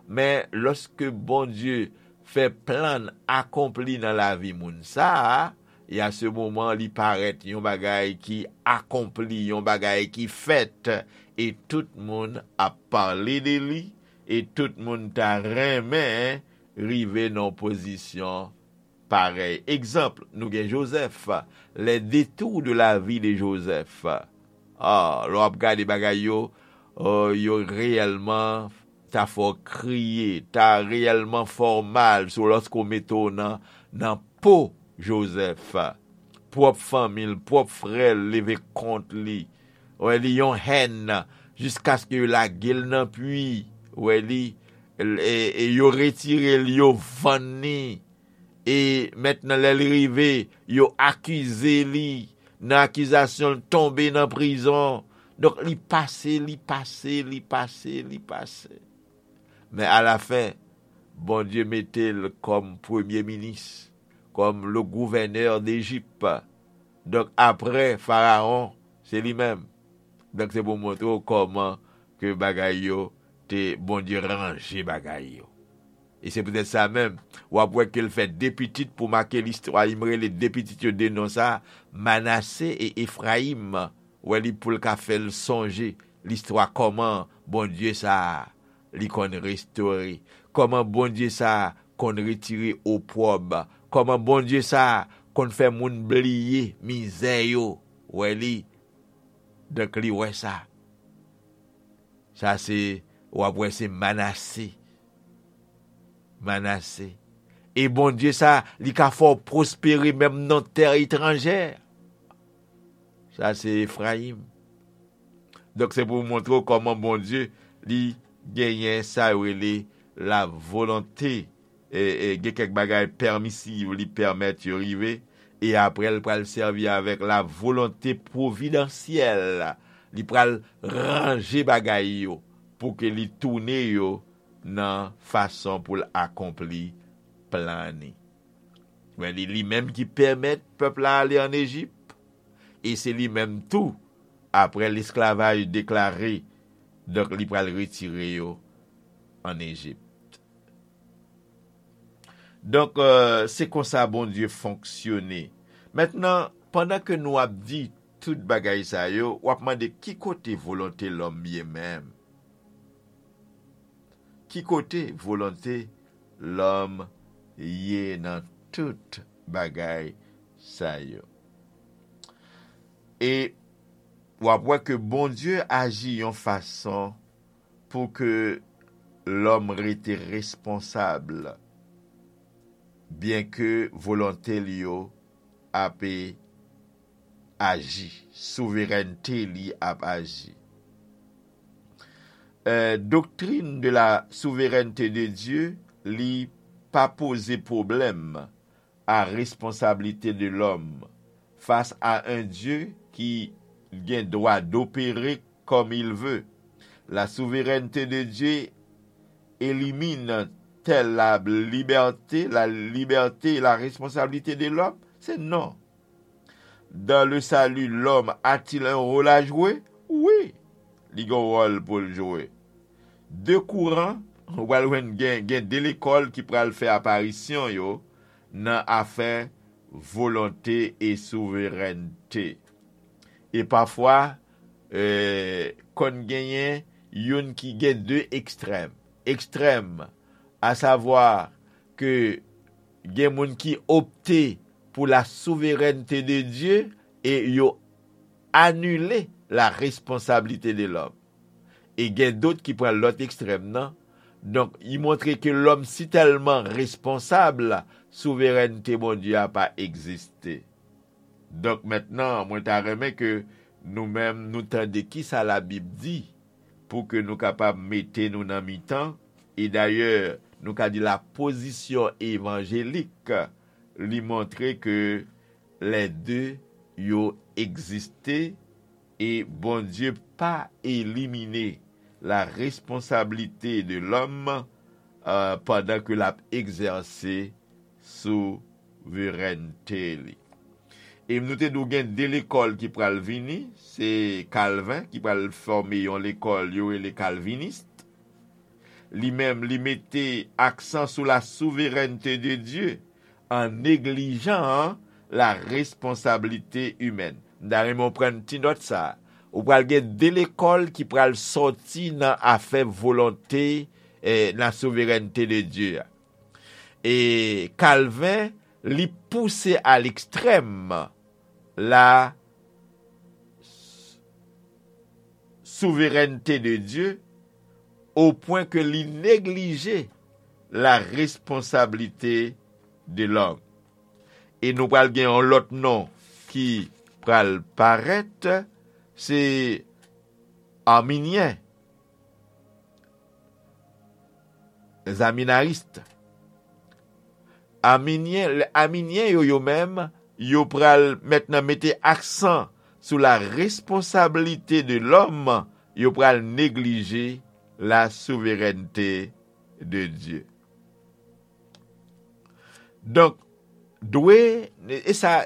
men lòske Bondye fè plan l akonpli nan lavi moun sa a, e a se moman li parèt yon bagay ki akonpli, yon bagay ki fèt, e tout moun ap pale de li, e tout moun ta renmen rive nan yon pozisyon parèy. Egzanp, nou gen Jozèf, les détours de la vie de Joseph. Ah, lè w ap gade bagay yo, oh, yo reyèlman ta fè w kriye, ta reyèlman fè w mal, sou lòske w mete w nan, nan po Jozèf. Pwòp fanmi l, pwòp frè l leve kont li. Wè li, yon hèn, jiskaske yo lage l nan pwi. Wè li, e, e yo retire l, yo vann li. E mentnan, lè l rive, yo akize li. Nan akizasyon, l tonbe nan prizon. Donk, li pase, li pase, li pase, li pase. Men alafen, Bondye mete l kòm premye minis, kòm le gouvènè de Ejip. Donk, apre Farawon, se li menm. Donk, se pou montre w kòman ke bagay yo te, Bondye ranje bagay yo. E se poutèt sa menm, w ap wè ke l fè de pitit pou make listwa. Li rele de pitit yo de non sa, Manase e Efrayim. Wè li, pou l ka fè l sonje listwa kòman Bondye sa a, li konn restore, kòman Bondye sa a konn retire opwòb, kòman Bondye sa a konn fè moun bliye mizè yo. Wè li, donk li wè sa. Sa se, w ap wè se Manase. Manase. E Bondye sa, li ka fè w pwospere menm nan tè etranjè. Sa se Efrayim. Donk, se pou montre w kòman Bondye, li genyen sa yo rele la volonte. E, e, gen kèk bagay pèmisiv, li pèmèt yo rive. E apre, l pral sèvi avèk la volonte pwovidansyèl. Li pral ranje bagay yo pou ke li tounen yo nan fason pou l akonpli plan li. Men li, li menm ki pèmèt pèp la ale ann Ejip. E se li menm tou, apre lesklavaj deklare, donk, li pral retire yo ann Ejip. Donk, e, se konsa Bondye fonksyone. Mentnan, pandan ke nou ap di tout bagay sa yo, w ap mande ki kote volonte lòm ye menm? Ki kote volonte lòm ye nan tout bagay sa yo? E w ap wè ke Bondye aji yon fason pou ke lòm rete responsab, byenke volonte l yo ap aji, souverènte li ap aji. Euh, doctrine de la souveraineté de Dieu, li pa poze pwoblèm a responsabilité de l'homme face à un Dieu qui gen dwa d'opérer comme il veut. La souveraineté de Dieu élimine-t-elle la liberté, la liberté et la responsabilité de l'homme? C'est non. Dans le salut, l'homme a-t-il un rôle à jouer? Wi, li gen yon wòl pou l jwe. De kouran, ou pral jwenn gen, gen de lekòl ki pral fè aparisyon yo nan afè volonte e souverènte. E pafwa, eh, konn genyen youn ki gen de ekstrèm. Ekstrèm, asavwa ke gen moun ki opte pour la souveraineté de Dieu e yo anile la responsabilité de l'homme. E gen dòt ki pran lòt ekstrèm nan. Donk, li montre ke lòm si tèlman responsab, souverènte Bondye a pa egziste. Donk, mentnan, mwen ta renmen ke nou menm, nou tande kisa Labib di pou ke nou kapab mete nou nan mitan. E dayè, nou ka di la pozisyon evanjelik, li montre ke lè de yo egziste e Bondye pa elimine la responsabilité de l'homme, euh, pandan ke l ap egzèse souverènte li. E nou te di w gen de lekòl ki pral vini, se Kalven ki pral fòme yon lekòl yo rele kalvinist. Li menm, li mete aksan sou la souverènte de Dye an neglijan la responsabilité humaine. M ta renmen w pran ti nòt sa. Ou pral gen de lekòl ki pral sòti nan afè volonte, eh, la souverènte de Dye a. E Kalven, li pouse a lekstrèm la souverènte de Dye, o pwen ke li neglije la responsabilité de l'homme. E nou pral gen yon lòt non ki pral parèt, se Arminyen, Zaminaris. Arminyen, lè Arminyen yo, yo menm, yo pral mentnan mete aksan sou la responsabilité de l'homme, yo pral neglije la souveraineté de Dieu. Donk, dwe, e sa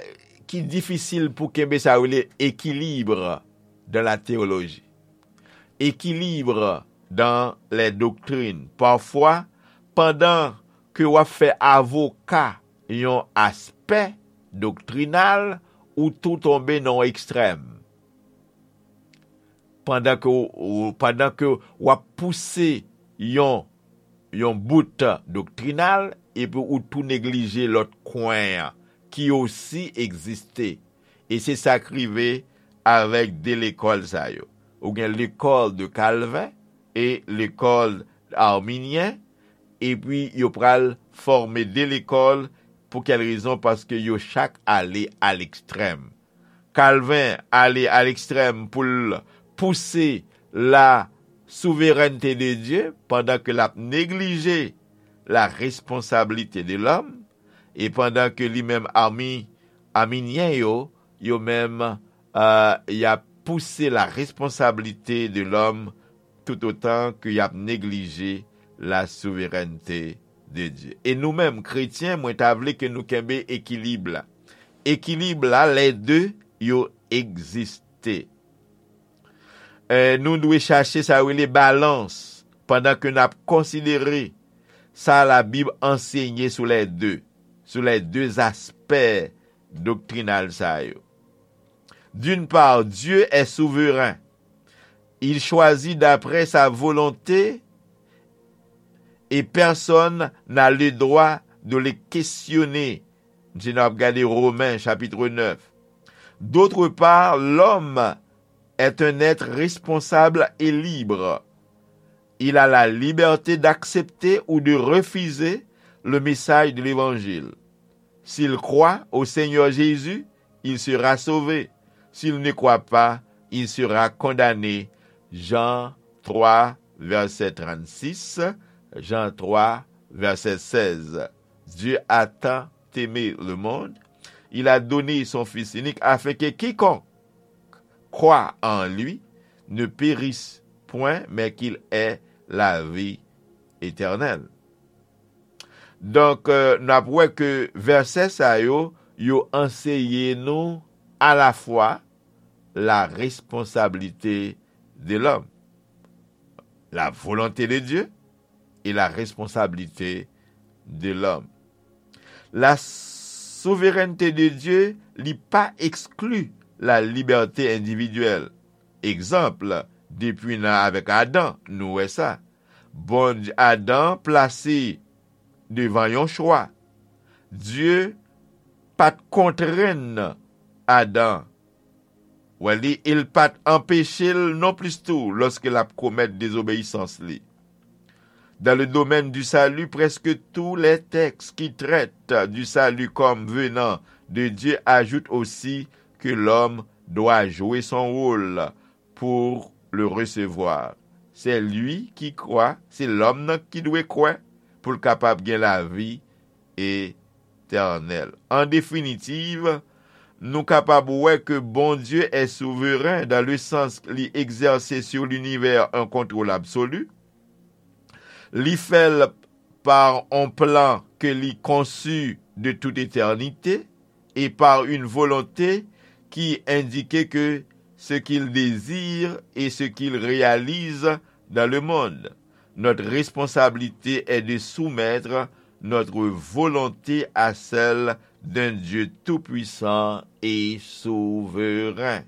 ki difisil pou kenbe sa yo rele ekilib dans la théologie. Ekilib dans les doctrines. Pafwa, pandan ke w ap fè avoka yon aspè doktrinal, ou tou tonbe nan yon ekstrèm. Pandan ke w, pandan ke w ap pouse yon, yon bout doktrinal, epi ou tou neglije lòt kwen an ki osi egziste. E se sa k rive avèk de lekòl sa yo. Ou gen l'école de Calvin e l'école arminienne, epi yo pral fòme de lekòl. Pou kèl rezon? Paske yo chak ale a lekstrèm. Kalvin ale a lekstrèm pou l pouse la souverènte de Dye, pandan ke l ap neglije la responsabilité de l'homme, e pandan ke li menm Armi, Arminyen yo, yo menm, euh, y ap pouse la responsabilité de l'homme tout autant ke y ap neglije la souverènte de Dye. E nou menm, kretyen, mwen ta vle ke nou kenbe ekilib la. Ekilib la, les deux, yo egziste. Eh, nou dwe chache sa yo rele balans pandan ke n ap konsidere sa Labib ansenye sou les deux, sou les deux aspè doktrinal sa yo. D'une part, Dieu est souverain. Il choisit d'après sa volonté et personne n'a le droit de le questionner. Si n ap gade Romen chapit nèf. D'autre part, l'homme est un être responsable et libre. Il a la liberté d'accepter ou de refuser le message de l'évangile. S'il croit au Seigneur Jésus, il sera sauvé. S'il ne croit pas, il sera condamné. Jean trois, verset trente-six, Jean trois, verset seize. Dieu a tant aimé le monde, il a donné son Fils unique afin que quiconque croit en lui ne périsse point, mais qu'il ait la vie éternelle. Donk, euh, n ap wè ke vèsè sa yo, yo anseye nou alafwa la responsabilité de l'homme, la volonté de Dieu et la responsabilité de l'homme. La souverènte de Dye, li pa ekskli la libète endividyèl. Egzanp, depi nan avèk Adan, nou wè sa. Bondye, Adan plase devan yon chwa. Dye pa t kontrenn Adan. Wè li, e l pa t anpeche l non plis tou lòske l ap komèt dezobeyisans li. Dans le domaine du salut, presque tous les textes qui traitent du salut comme venant de Dieu ajoutent aussi que l'homme doit jouer son rôle pour le recevoir. C'est lui qui croit, se lòm nan ki dwe kwè pou l kapab gen lavi etènèl. An definitiv, nou kapab wè ke Bondye est souveren dans le sens li egzèse sur l'univers un contrôle absolu. Li fè l par on plan ke li konsi de tout etènite e par une volonté qui indique que ce qu'il désire et ce qu'il réalise dans le monde. Notre responsabilité est de soumettre notre volonté à celle d'un Dieu tout-puissant et souverain.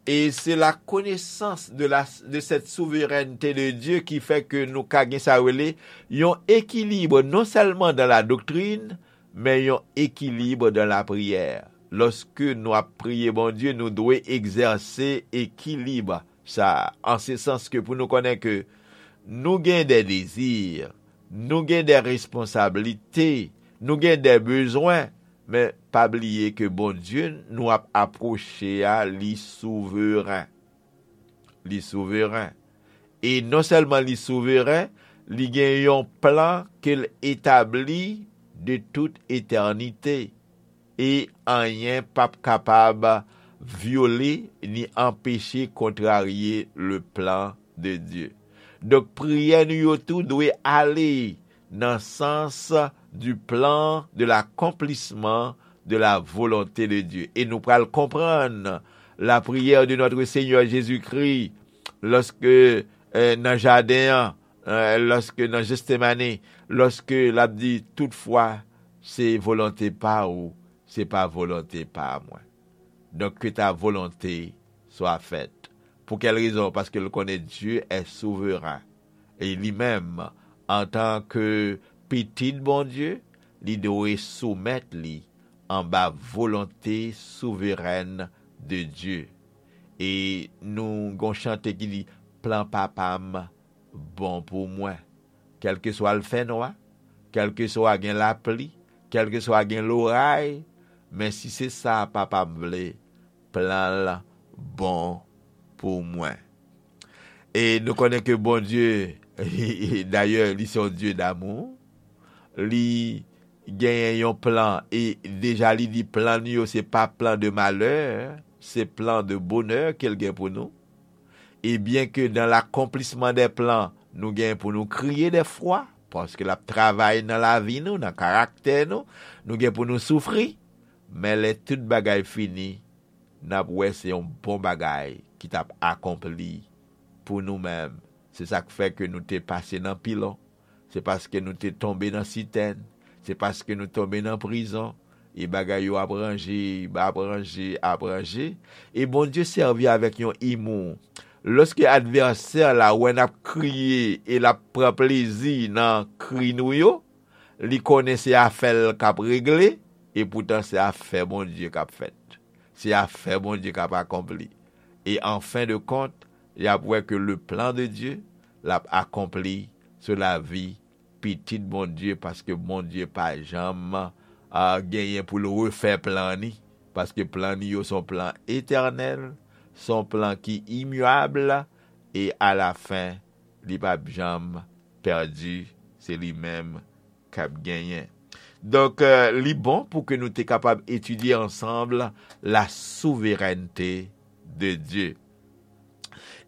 E se la konesans de la, de cette souveraineté de Dieu ki fè ke nou ka gen sa rele yon ekilib non sèlman dans la doctrine, men yon ekilib dans la prière. Lòske nou ap priye Bondye, nou dwe egzèse ekilib sa, an se sans ke pou nou konnen ke nou gen de dezi, nou gen de responsablite, nou gen de bezwen, Men pa bliye ke Bondye nou ap apwoche a, li souveren. Li souveren. E non sèlman li souveren, li gen yon plan ke l etabli de tout etènite. E anyen p ap kapab vyole ni anpeche kontrarye le plan de Dye. Donk, priyè nou yo tou dwe ale nan sans du plan de l'accomplissement de la volonté de Dieu. E nou pral konprann la prière de notre Seigneur Jésus-Christ lòske, eh, nan jaden an, eh, lòske nan Jetsemane, lòske l ap di, toutfwa, se volonte pa ou, se pa volonte pa mwen. Donk, que ta volonté soit faite. Pou kèl rezon? Paske l konnen Dye è souveren. E li menm, antan ke pitit Bondye, li dwe soumèt li anba volonte souverèn de Dye. E nou gon chante ki di, plan papa m bon pou mwen. Kèlkeswa l fè nwa, kèlkeswa gen lapli, kèlkeswa gen loray, men si se sa papa m vle, plan l bon pou mwen. E nou konnen ke Bondye, dayè, li se yon Dye damou. Li genyen yon plan, e deja li di plan li yo se pa plan de malè, se plan de bonè ke l gen pou nou. E byen ke dans l'accomplissement des plans, nou gen pou nou kriye dèfwa, paske l ap travay nan lavi nou, nan karaktè nou, nou gen pou nou soufri, men lè tout bagay fini, n ap wè se yon bon bagay ki t ap akonpli pou nou menm. Se sa k fè ke nou te pase nan pilon. Se paske nou te tonbe nan sitèn. Se paske nou tonbe nan prizon. E bagay yo ap ranje, ap ranje, ap ranje. E Bondye sèvi avèk yon imou. Lòske advèsè la wè n ap kriye e l ap pran plezi nan kri nou yo, li konnen se afè l k ap regle, e poutan se afè Bondye k ap fèt. Se afè Bondye k ap akonpli. E an fen de kont, y ap wè ke le plan de Dieu, l ap akonpli sou lavi pitit Bondye, paske Bondye pa janm, a, genyen pou l refè plan ni, paske plan ni yo se yon plan etènèl, se yon plan ki imyab, e alafen, li p ap janm pèdi, se li menm k ap genyen. Donk, euh, li bon pou ke nou te kapab etidye ansanm la souverènte de Dye.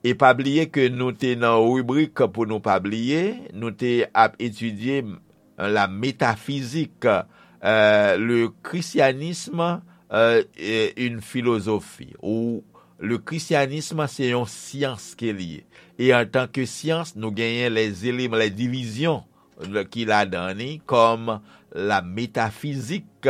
E pa bliye ke nou te nan ribrik pou nou pa bliye, nou te ap etidye, euh, la métaphysique, euh, le christianisme, euh, est une philosophie, ou le christianisme se yon syans ke li ye. E antanke syans, nou genyen les éléments, les divisions ki ladan ni, kòm la métaphysique,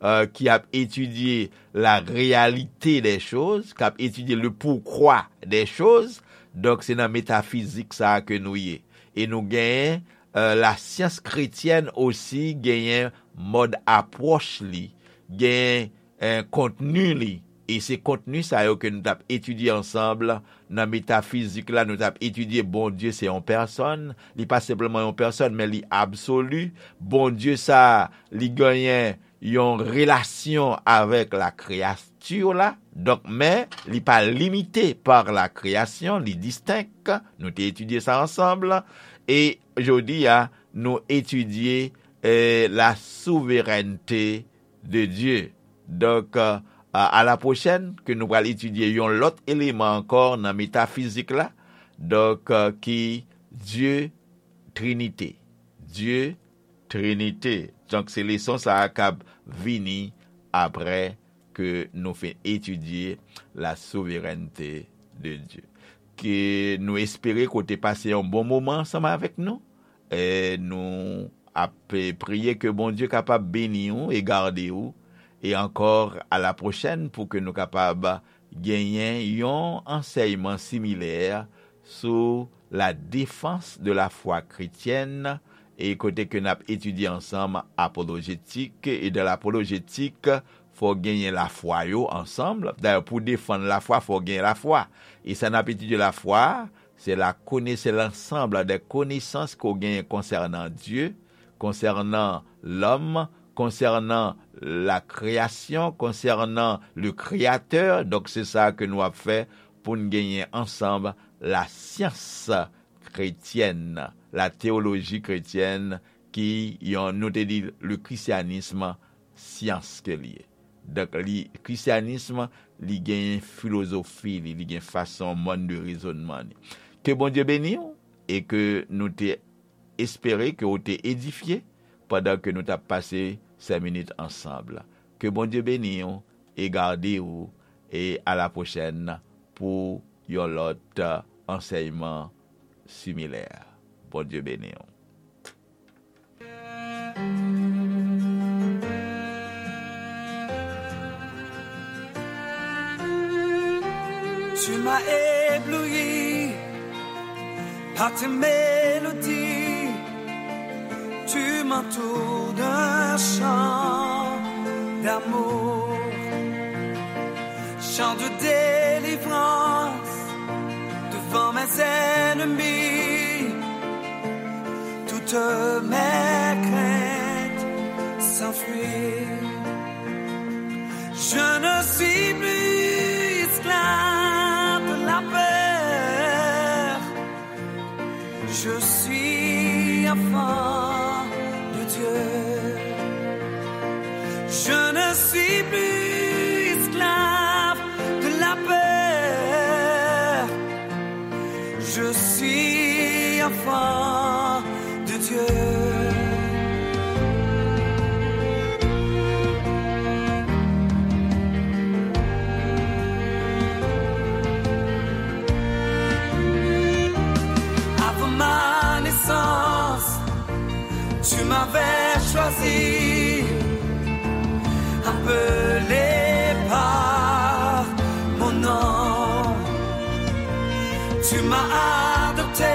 euh, ki ap etidye la réalité des choses, k ap etidye le pourquoi des choses. Donk, se nan metafizik sa a ke nou ye. E nou genyen, euh, la science chrétienne osi genyen mòd apwòch li, genyen, eh, kontni li. E se kontni sa yo ke nou t ap etidye ansanm nan metafizik la, nou t ap etidye Bondye se yon pèsòn, li pa senpleman yon pèsòn, men li absoli. Bondye sa, li genyen yon relasyon avèk la kreyati la. Donk, men, li pa limite pa la kreyasyon, li distenk. Nou te etidye sa ansanm. E jodi a, nou etidye, eh, la souverènte de Dye. Donk, euh, a, a la pwochèn, ke nou pral etidye yon lòt eleman ankò nan metafizik la. Donk, euh, ki Dye Trinite. Dye Trinite. Donk, se leson sa a k ap vini apre ke nou fin etidye la souverènte de Dye. Ke nou espere ke w te pase yon bon moman ansanm avèk nou. E nou ap, eh, priye ke Bondye kapab beni w e gade w. E ankò, a la pwochèn pou ke nou kapab genyen yon ansèyman similè sou la défense de la foi chrétienne, e kote ke n ap etidye ansanm apolojetik, e dan lapolojetik, fò genyen lafwa yo ansanm. Dayè, pou defann lafwa, fò genyen lafwa. E sa n ap etidye lafwa, se la kone-, se l'ensemble des connaissances ke w genyen konsènan Dye, konsènan lòm, konsènan la création, konsènan le Créateur. Donk, se sa ke nou ap fè pou n genyen ansanm la science chrétienne, la théologie chrétienne, ki yon, nou te di, le christianisme, syans ke li ye. Donk, li, christianisme, li gen filozofi li, li gen fason, mode de raisonnement li. Ke Bondye beni w e ke nou te espere ke w te edifye pandan ke nou t ap pase sèt minit ansanm. Ke Bondye beni w e gade w, e a la pwochèn pou yon lòt ansèyman similè. Bondye beni w. Tu m'as ébloui par tes mélodies. Tu m'entoures d'un chant d'amour, chant de délivrance devant mes ennemis. Toutes mes craintes s'enfuient. Je ne suis plus esclave de la peur. Je suis enfant de Dieu. Je ne suis plus esclave de la peur. Je suis enfant de Dieu. Avant ma naissance, tu m'avais choisi, appelé par mon nom. Tu m'as adopté